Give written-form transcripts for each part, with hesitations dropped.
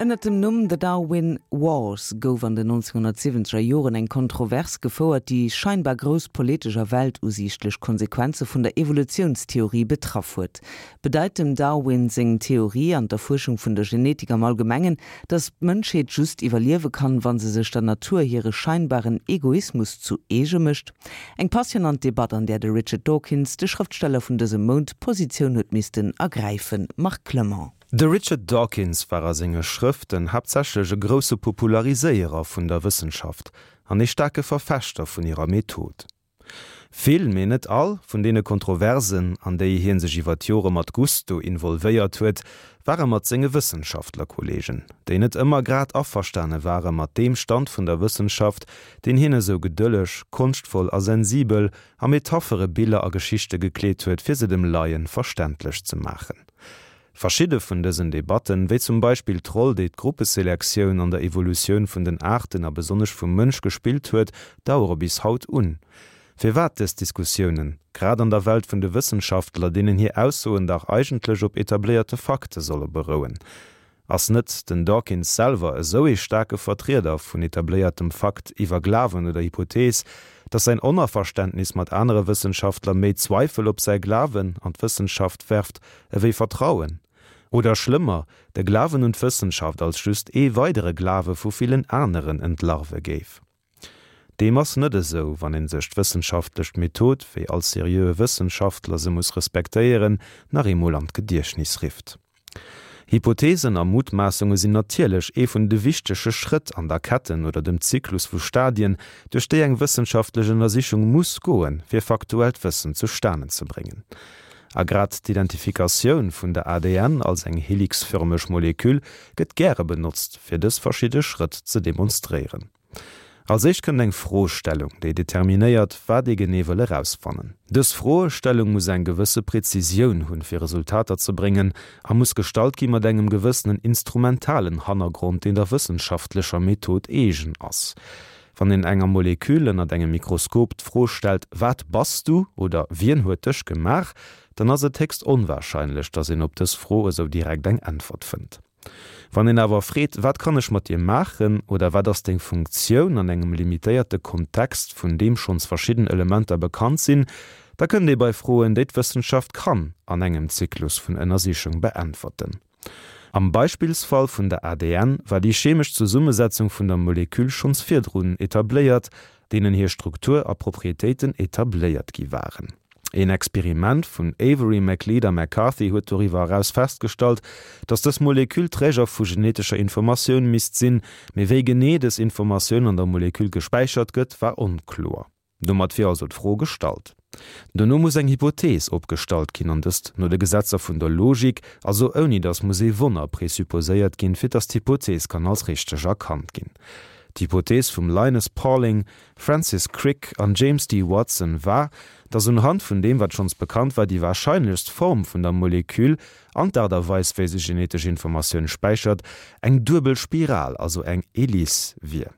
Ënnert dem Numm The Darwin Wars gouf an den 1970er Joren eng Kontrovers gefouert, déi scheinbar grouss politesch a weltusiichtlech Konsequenze vun der Evolutiounstheorie betraff huet. Bedeit dem Darwin seng Theorie an d'Erfuerschung vun der Genetik am Allgemengen, datt d'Mënschheet just iwwerliewe kann, wa se sech der Natur hire scheinbaren Egoismus zu eege mécht? Eng passionant Debatt, an där de Richard Dawkins, de Schrëftsteller vun dësem Mount, Positioun huet missten ergräifen. Marc Clement. De Richard Dawkins war a senge Schrëften haaptsächlech e grousse Populariséierer vun der Wëssenschaft an ee staarke Verfechter vun hirer Method. Vill, mee net all, vun deene Kontroversen, an déi hie sech iwwer d'Jore mat Gusto involvéiert huet, ware mat senge Wëssenschaftlerkolleegen, déi net ëmmer grad averstane ware mat deem Stand vun der Wëssenschaft, deen hien esou gedëlleg, konschtvoll a sensibel a Metaphere, Biller a Geschichte gekleet huet, fir se dem Laien verständlech ze maachen. Verschidde vun dësen Debatten, wéi zum Beispill d'Roll, déi d'Gruppeselektioun an der Evolutioun vun den Aarten a besonnesch vum Mënsch gespillt huet, dauere bis haut un. Firwat dës Diskussiounen, grad an der Welt vun de Wëssenschaftler, deenen hir Aussoen dach eigentlech op etabléierte Fakte solle berouen? Ass net den Dawkins selwer esou ee staarke Vertrieder vun etabléiertem Fakt iwwer Glawen oder Hypothees, datt säin Onaverständnis mat anere Wëssenschaftler méi Zweifel op säi Glawen an d'Wëssenschaft werft ewéi Vertrauen? Oder schlëmmer, de Glawen un d'Wëssenschaft als just ee weidere Glawe vu villen aneren entlarve géif? Deem ass net esou, wann ee sech d'wëssenschaftlech Method, wéi all seriöe Wëssenschaftler se muss respektéieren, nach eemol an d'Gediechtnis rifft. Hypothesen a Mutmaassunge sinn natierlech ee vun de wichtege Schrëtt an der Ketten oder dem Zyklus vu Stadien, duerch déi eng wëssenschaftlech Ënnersichung muss goen, fir faktuellt Wëssen zustanen ze bréngen. A grad d'Identifikatioun vun der ADN als eng helixförmeg Moleküll gëtt gäre benotzt, fir dës verschidde Schrëtt ze demonstréieren. Als éischt kënnt eng Froestellung, déi determinéiert, wat ee genee wëll erausfannen. Dës Froestellung muss eng gewësse Präzisioun hunn, fir Resultater ze bréngen, a muss gestallt gi mat engem gewëssenen instrumentalen Hannergrond, deen der wëssenschaftlecher Method eegen ass. Wann een enger Molekül ënnert engem Mikroskop d'Fro stellt, Wat bass du? oder Wien huet dech gemaach? dann ass et héchst onwahrscheinlech, datt een op dës Fro esou direkt eng Äntwert fënnt. Wann een awer freet, Wat kann ech mat dir maachen? oder Wat ass deng Funktioun an engem limitéierte Kontext, vun deem schonns verschidden Elementer bekannt sinn, da kënnt ee bei Froen, déi d'Wëssenschaft kann an engem Zyklus vun Ënnersichung beäntwerten. Am Beispillsfall vun der ADN war déi chemesch Zesummesetzung vun der Molekül schonns virdrun etabléiert, deenen hir Struktur a Proprietéiten etabléiert gi waren. Een Experiment vun Avery, MacLeod a McCarthy huet doriwwer eraus festgestallt, datt dës Molekül Träger vu genetescher Informatioun misst sinn, mee wéi genee dës Informatioun an der Molekül gespäichert gëtt, war onkloer. Domat wier also d'Fro gestallt. Dono muss eng Hypothees opgestallt ginn, an dëst no de Gesetzer vun der Logik, also ouni datt muss ee Wonner présupposéiert ginn, fir datt d'Hypothees kann als richteg erkannt ginn. D'Hypothees vum Linus Pauling, Francis Crick an James D. Watson war, datt unhand vun deem wat schonns bekannt war, déi warscheinlechst Form vun der Molekül an d'Aart a Weis wéi se genetesch Informatioun späichert, eng duebel Spiral, also eng Hélice wier.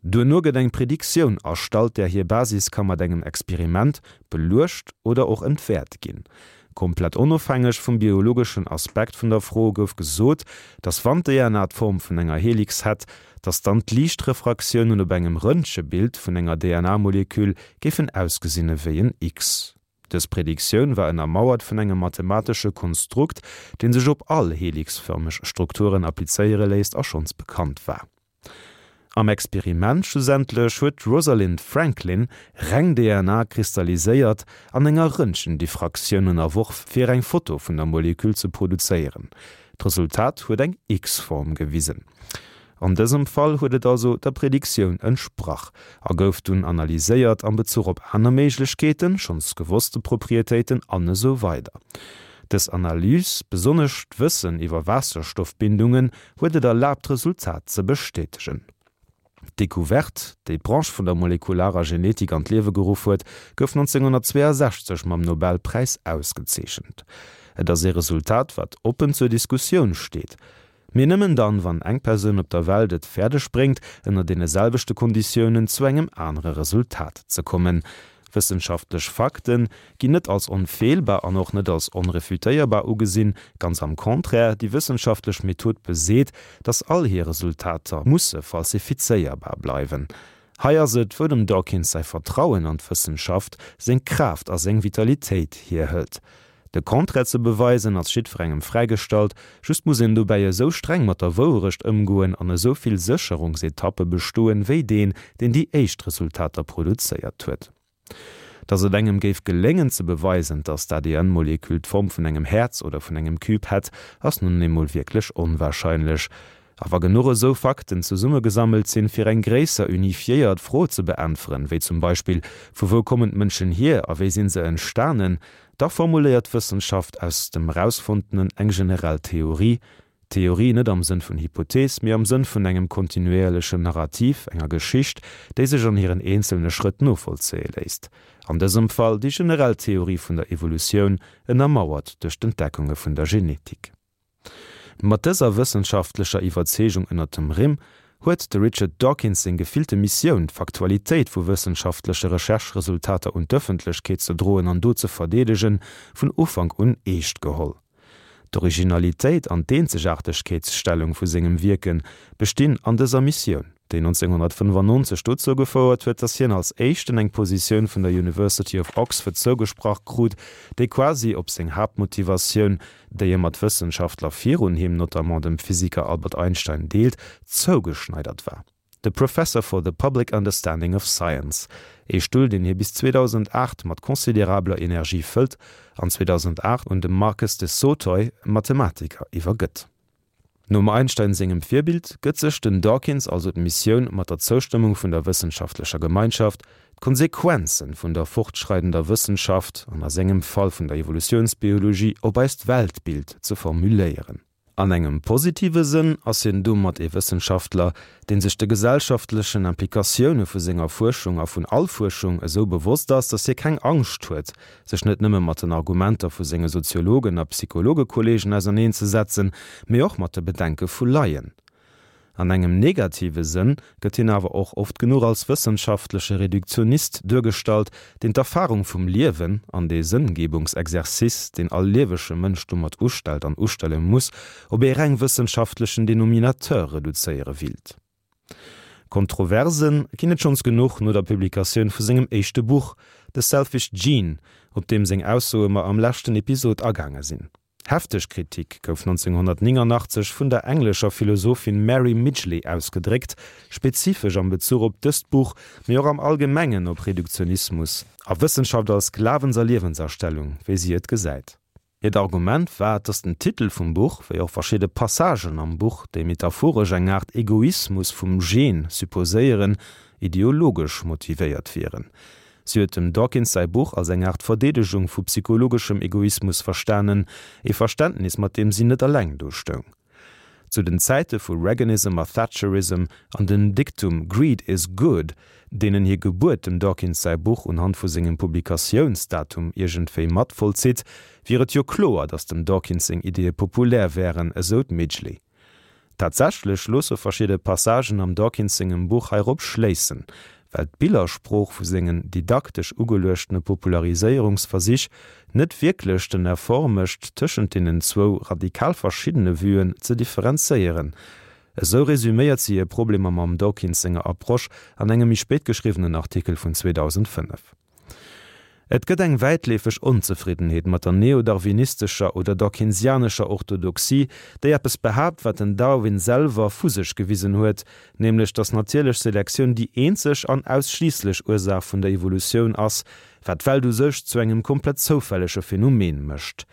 Duerno gëtt eng Prediktioun erstallt, där hir Basis ka mat engem Experiment beluecht oder och entwäert ginn. Komplett onofhängeg vum biologeschen Aspekt vun der Fro gouf gesot, datt wann d'DNA d'Form vun enger Helix hätt, datt dann d'Liichtrefraktiounen op engem Röntgebild vun enger DNA-Molekül géifen ausgesinn ewéi en X. Dës Prediktioun war ënnermauert vun engem mathematesche Konstrukt, dee sech op all helixfërmeg Strukturen applizéiere léisst a schonns bekannt war. Am Experiment schlussendlech huet d'Rosalind Franklin reng DNA kristalliséiert an enger Röntgendiffraktioun ënnerworf fir eng Foto vun der Molekül ze produzéieren. D'Resultat huet eng X-Form gewisen. An dësem Fall huet et also der Prediktioun entsprach a gouf dunn analyséiert am Bezuch op aner Méiglechkeeten, schonns gewosste Proprietéiten an esou weider Dës Analys, besonnesch d'Wëssen iwwer Waasserstoffbindungen, huet et erlaabt d'Resultat ze bestätegen. D'Decouverte, déi d'Branche vun der molekularer Genetik an d'Liewe geruff huet, gouf 1962 mam Nobelpräis ausgezeechent. Et ass ee Resultat, wat oppen zur Diskussioun steet. Mee nëmmen dann, wann eng Persoun op der Welt et fäerdeg bréngt, ënner deene selwechte Konditiounen zu engem anere Resultat ze kommen. Wëssenschaftlech Fakte ginn net als onfeelbar an och net als onrefutéierbar ugesinn, ganz am Contraire, déi wëssenschaftlech Method beseet, datt all hir Resultater musse falsifizéierbar bleiwen. Hei ass et, wou dem Dawkins säi Vertrauen an d'Wëssenschaft seng Kraaft a seng Vitalitéit hierhëlt. De Contraire ze beweisen ass jiddwerengem fräigestallt, just muss een dobäi esou streng mat der Wouerecht ëmgoen an esou vill Sécherungsetappe bestoen, wéi deen, deen déi éischt Resultater produzéiert huet. Datt et engem géif geléngen ze beweisen, datt d'ADN-Molekül d'Form vun engem Häerz oder vun engem Cube hätt, ass nun eemol wierklech onwahrscheinlech. A wa genuch esou Fakten zesummegesammelt sinn, fir eng gréisser unifiéiert Fro ze beäntweren, wéi zum Beispill, Vu wou kommen d'Mënschen hier a wéi sinn se entstanen? da formuléiert d'Wëssenschaft aus dem Erausfonntenen eng generell Theorie, Theorie net am Sënn vun Hypothees, mee am Sënn vun engem kontinuéierlechen Narrativ, enger Geschicht, déi sech an hiren eenzelne Schrëtt novollzéie léisst. An dësem Fall déi generell Theorie vun der Evolutioun, ënnermauert duerch d'Entdeckunge vun der Genetik. Mat dëser wëssenschaftlecher Iwwerzeegung ënnert dem Rimm huet de Richard Dawkins seng gefillte Missioun, d'Faktualitéit vu wëssenschaftleche Recherche-Resultater un d'Ëffentlechkeet ze droen an do ze verdeedegen, vun Ufank un eescht geholl. D'Originalitéit an d'Eenzegaartegkeetsstellung vu sengem Wierke bestinn an dëser Missioun. déi 1995 dozou gefouert huet, datt hien als éischten eng Positioun vun der University of Oxford zougesprach krut, déi quasi op seng Haaptmotivatioun, déi e mat Wëssenschaftler virun him, notamment dem Physiker Albert Einstein, deelt, zougeschneidert war, de Professor for the Public Understanding of Science, ee Stull, deen hie bis 2008 mat considerabler Energie fëllt an 2008 un de Marcus de Sautoy, Mathematiker, iwwergëtt. Nom Einstein sengem Virbild gëtt sech den Dawkins also d'Missioun, mat der Zoustëmmung vun der wëssenschaftlecher Gemeinschaft, d'Konsequenzen vun der fortschreidender Wëssenschaft, an a sengem Fall vun der Evolutiounsbiologie, op eist Weltbild ze formuléieren. An engem positive Sënn ass hien domat ee Wëssenschaftler, deen sech de gesellschaftlechen Implikatioune vu senger Fuerschung a vun all Fuerschung esou bewosst ass, datt hie keng Angscht huet, sech net nëmme mat den Argumenter vu senge Soziologen a Psychologekolleegen auserneenzesetzen, mee och mat de Bedenke vu Laien. An engem negative Sënn gëtt hien awer och oft genuch als wëssenschaftleche Reduktionist duergestallt, deen d'Erfarung vum Liewen an dee Sënngebungsexercice, deen all liewege Mënsch domat ustellt an ustelle muss, op ee reng wëssenschaftlechen Denominateur reduzéiere willt. Kontroverse ginn et schonns genuch no der Publikatioun vu sengem éischte Buch The Selfish Gene, op deem seng Aussoe mer am leschten Episod agaange sinn. Hefteg Kritik gouf 1989 vun der englescher Philosophin Mary Midgley ausgedréckt, spezifesch am Bezuch op dëst Buch, mee och am Allgemengen op Reduktionismus a Wëssenschaft als Glawens a Liewensastellung, wéi si et gesäit. Hiert Argument war, dass den Titel vum Buch, wéi och verschidde Passagen am Buch, déi metaphoresch eng Aart Egoismus vum Gen supposéieren, ideologesch motivéiert wieren. Si huet dem Dawkins säi Buch als eng Aart Verdeedegung vu psychologeschem Egoismus verstanen, ee Verständnis, mat deem si net eleng do stoung. Zu den Zäite vu Reaganism a Thatcherism an dem Diktum Greed is good, deenen hir Gebuert dem Dawkins säi Buch unhand vu sengem Publikatiounsdatum iergendwéi mat vollzitt, wier et jo kloer, datt dem Dawkins seng Ideeë populär wären, esou d'Midgley. Tatsächlech loosse verschidde Passagen am Dawkins sengem Buch heirop schléissen, well d'Billersprooch vu sengen didaktesch ugeluechtene Populariséierungsversich net wierklech den Effort mécht, tëschent deenen zwou radikal verschiddene Vuen ze differenzéieren. Esou resuméiert si hir Problemer mam Dawkins senger Approche an engem méi spéit geschriwwenen Artikel vun 2005. Et gëtt eng wäitleefeg Onzefriddenheet mat der neodarwinistescher oder dawkinsianescher Orthodoxie, déi eppes behaapt, wat den Darwin selwer vu sech gewisen huet, nämlech datt natierlech Selektioun déi eenzeg an ausschliisslech Ursaach vun der Evolutioun ass, wat d'Welt u sech zu engem komplett zoufällege Phänomen mécht.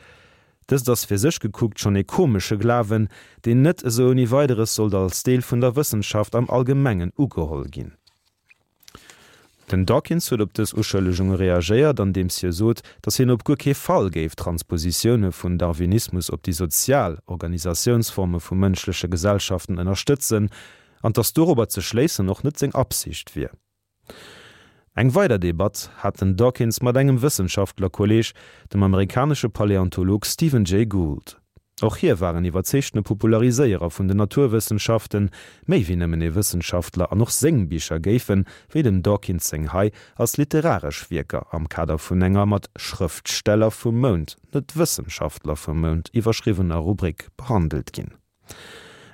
Dëst ass fir sech gekuckt schonn ee komesche Glawen, deen net esou ouni Weideres sollt als Deel vun der Wëssenschaft am Allgemengen ugeholl ginn. Den Dawkins huet op dës Uschëllegunge reagéiert, andeems hie sot, datt hien op guer kee Fall géif Transpositioune vun Darwinismus op déi sozial Organisatiounsforme vu mënschleche Gesellschaften ënnerstëtzen, an datt dorobber ze schléissen och net seng Absicht wier. Eng weider Debatt hat den Dawkins mat engem Wëssenschaftlerkolleeg, dem amerikanesche Paläontolog Stephen Jay Gould. Och hie war en iwwerzeegtene Populariséierer vun den Naturwëssenschaften, méi wéi nëmmen ee Wëssenschaftler, an och seng Bicher géifen, wéi dem Dawkins seng hei, als literaresch Wierker am Kader vun enger mat Schrëftsteller vum Mount, net Wëssenschaftler vum Mount iwwerschriwwener Rubrik behandelt ginn.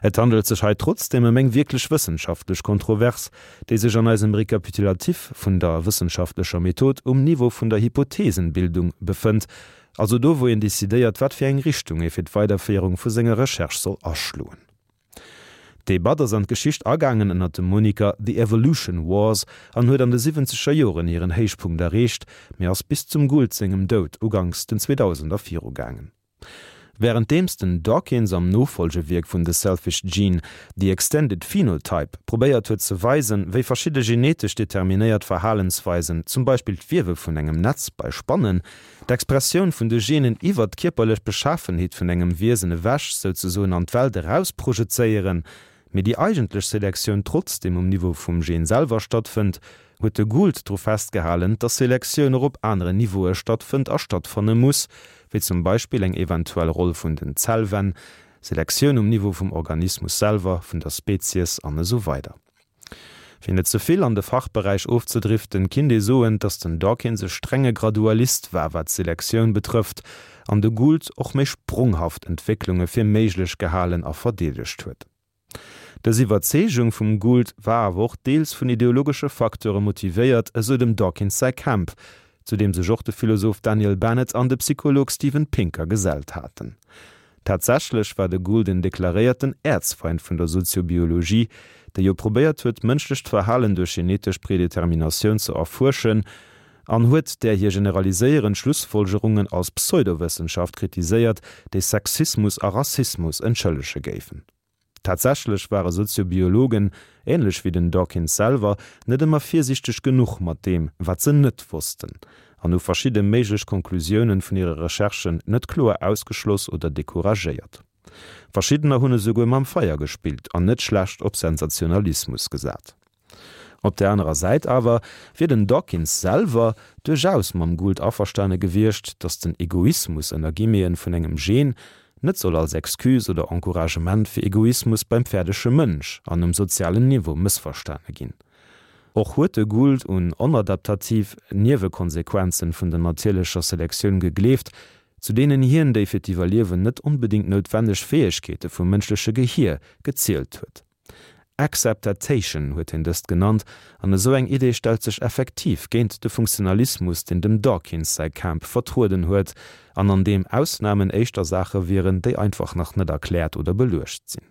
Et handelt sech hei trotzdeem ëm eng wierklech wëssenschaftlech Kontrovers, déi sech an eisem Rekapitulatif vun der wëssenschaftlecher Method um Niveau vun der Hypothesenbildung befënnt, also do wou een decidéiert, wat fir eng Richtung ee fir d'Weiderféierung vu senger Recherche soll aschloen. D'Debatt ass an d'Geschicht agaangen ënner dem Moniker The Evolution Wars an huet an de siwwenzeger Joren hiren Héichpunkt erreecht, mee ass bis zum Gould sengem Doud uganks den Zweedausender virugaangen. Wärenddeems den Dawkins am Nofollgewierk vun The Selfish Gene, The Extended Phenotype probéiert huet ze weisen, wéi verschidde genetesch determinéiert Verhalensweisen, zum Beispill d'Wiewe vun engem Netz bei Spannen, d'Expressioun vun de Genen iwwer d'kierperlech Beschafenheet vun engem Wiesen ewech souzesoen an d'Welt eraus projezéieren, mee déi eigentlech Selektioun trotzdeem um Niveau vum Gen selwer stattfënnt, huet de Gould dru festgehalen, dass Selektioun och op aneren Niveaue stattfënnt a stattfanne muss, wéi zum Beispill eng eventuell Roll vun den Zellwänn, Selektioun um Niveau vum Organismus selwer, vun der Spezies an esou weider. Fir net ze vill an de Fachberäich ofzedriften, kinnt ee soen, dass den Dawkins e strenge Gradualist war, wat d'Selektioun betrëfft, an de Gould och méi spronghaft Entwécklunge fir méiglech gehalen a verdeedegt huet. Dës Iwwerzeegung vum Gould war awer och deels vun ideologesche Facteure motivéiert, esou dem Dawkins säi Camp, zu deem sech och de Philosoph Daniel Bennett an de Psycholog Steven Pinker gesellt haten. Tatsächlech war de Gould en deklaréierten Äerzfeind vun der Soziobiologie, déi jo probéiert huet, d'mënschlecht Verhalen duerch genetesch Predeterminatioun ze erfuerschen, an huet där hir generaliséierend Schlussfolgerungen als Pseudowëssenschaft kritiséiert, déi Sexismus a Rassismus entschëllege géifen. Tatsächlech ware Soziobiologen, änlech wéi den Dawkins selwer, net ëmmer virsiichteg genuch mat deem, wat se net wossten, an hu verschidde méiglech Konklusiounen vun hire Recherchen net kloer ausgeschloss oder decouragéiert. Verschiddener hunn esouguer mam Feier gespillt an net schlecht op Sensationalismus gesat. Op där anerer Säit awer wier den Dawkins selwer duerchaus mam Gould averstane gewiescht, datt den Egoismus ënner Guillemeten vun engem Gen net soll als Excuse oder Encouragement fir Egoismus beim fäerdege Mënsch an um sozialen Niveau mëssverstane ginn. Och huet de Gould un onadaptativ Niewekonsequenzen vun der natierlecher Selektioun gegleeft, zu deenen hien déi fir d'Iwwerliewen net onbedéngt noutwenneg Fäegkeete vum mënschleche Gehier gezielt huet. Acceptatation huet hien dëst genannt, an esou eng Idee stellt sech effektiv géint de Funktionalismus, deen dem Dawkins säi Camp vertrueden huet, an an deem Ausnamen éischter Saache wieren, déi einfach nach net erkläert oder beluecht sinn.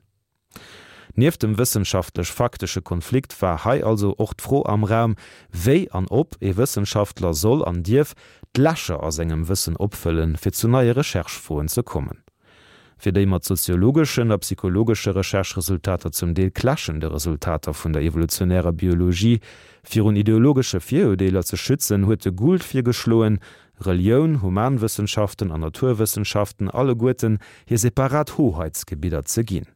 Nieft dem wëssenschaftlech-faktesche Konflikt war hei also och d'Fro am Raum, wéi an ob ee Wëssenschaftler soll an dierf d'Lächer a sengem Wëssen opfëllen, fir zu neie Recherche-Froen ze kommen. Fir déi mat soziologeschen a psychologesche Recherche-Resultater zum Deel clashende Resultater vun der evolutionärer Biologie virun ideologesche Virurdeeler ze schützen, huet de Gould virgeschloen, Relioun, Humanwëssenschaften an Naturwëssenschaften alleguerten hir separat Hoheitsgebidder ze ginn.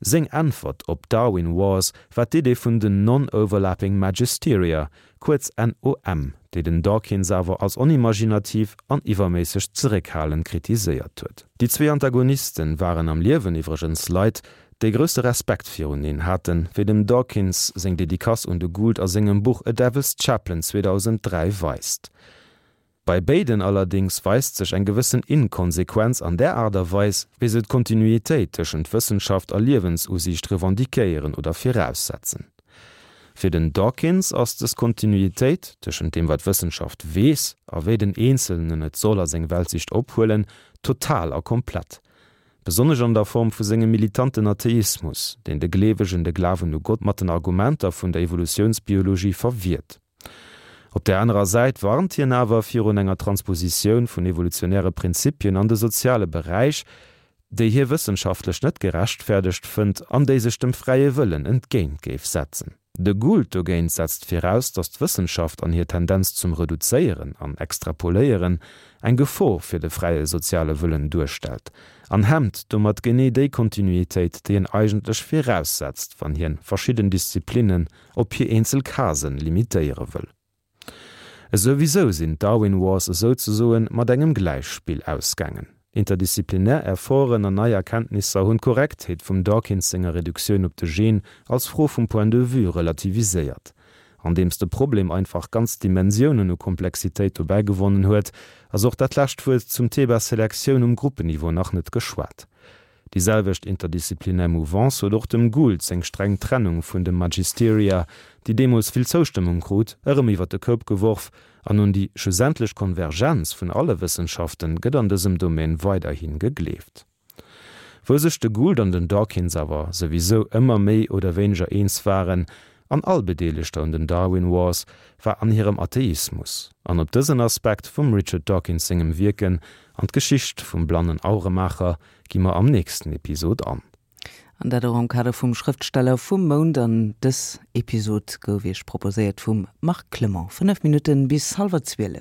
Seng Äntwert op Darwin Wars war d'Idee vun den Non-Overlapping Magisteria, kuerz NOM, déi den Dawkins awer als onimaginativ an iwwerméisseg zeréckhalend kritiséiert huet. Déi zwee Antagonisten waren am Liewen iwwregens Leit, déi grousse Respekt viruneen haten, wéi dem Dawkins seng Dedicace un de Gould a sengem Buch A Devil's Chaplain 2003 weist. Bei béiden allerdéngs weist sech eng gewëssen Inkonsequenz an där Aart a Weis, wéi se d'Kontinuitéit tëschent Wëssenschaft a Liewensusiicht revendiquéieren oder viraussetzen. Fir den Dawkins ass dës Kontinuitéit, tëschent deem wat d'Wëssenschaft weess a wéi den Eenzelnen et soll a seng Weltsicht ophuelen, total a komplett. Besonnesch an der Form vu sengem militanten Atheismus, deen de Gleewegen de Glawen u Gott mat den Argumenter vun der Evolutiounsbiologie verwiert. Op där anerer Säit warnt hien awer virun enger Transpositioun vun evolutionäre Prinzipien an de soziale Beräich, déi hie wëssenschaftlech net gerechtfäerdegt fënnt an déi sech dem fräie Wëllen entgéint géif setzen. De Gould dogéint setzt viraus, datt d'Wëssenschaft an hir Tendenz zum Reduzéieren an Extrapoléieren eng Gefor fir de fräie soziale Wëllen duerstellt an hemmt domat genee déi Kontinuitéit, déi en eigentlech viraussetzt, wann hien verschidden Disziplinnen op hir eenzel Casen limitéiere wëll. Esouwisou sinn d'Darwin Wars esouzesoen mat engem Gläichspill ausgaangen. Interdisziplinär Efforten an nei Erkenntnisser hunn d'Korrektheet vum Dawkins senger Reduktioun op de Gen als Fro vum Point de vue relativiséiert. Andeems de Problem einfach ganz Dimensiounen u Komplexitéit dobäi gewonnen huet, ass och dat lescht Wuert zum Thema Selektioun um Gruppenniveau nach net geschwat. Déi selwecht interdisziplinär Mouvance huet och dem Gould seng streng Trennung vun de Magisteria, déi deemools vill Zoustëmmung krut, erëm iwwer de Koup geworf, an un déi schlussendlech Konvergenz vun alle Wëssenschaften gëtt an dësem Domaine weiderhi gegleeft. Wou sech de Gould an den Dawkins awer souwisou ëmmer méi oder wéineger eens waren, an all Bedeelegter un den Darwin Wars, war an hirem Atheismus. An op dësen Aspekt vum Richard Dawkins sengem Wierken an d'Geschicht vum blannen Auremaacher gi mer am nächsten Episod an. An dat och am Kader vum Schrëftsteller vum Mount. An dës Episod gouf Iech proposéiert vum Marc Clement. 5 Minutten bis hallwer 12.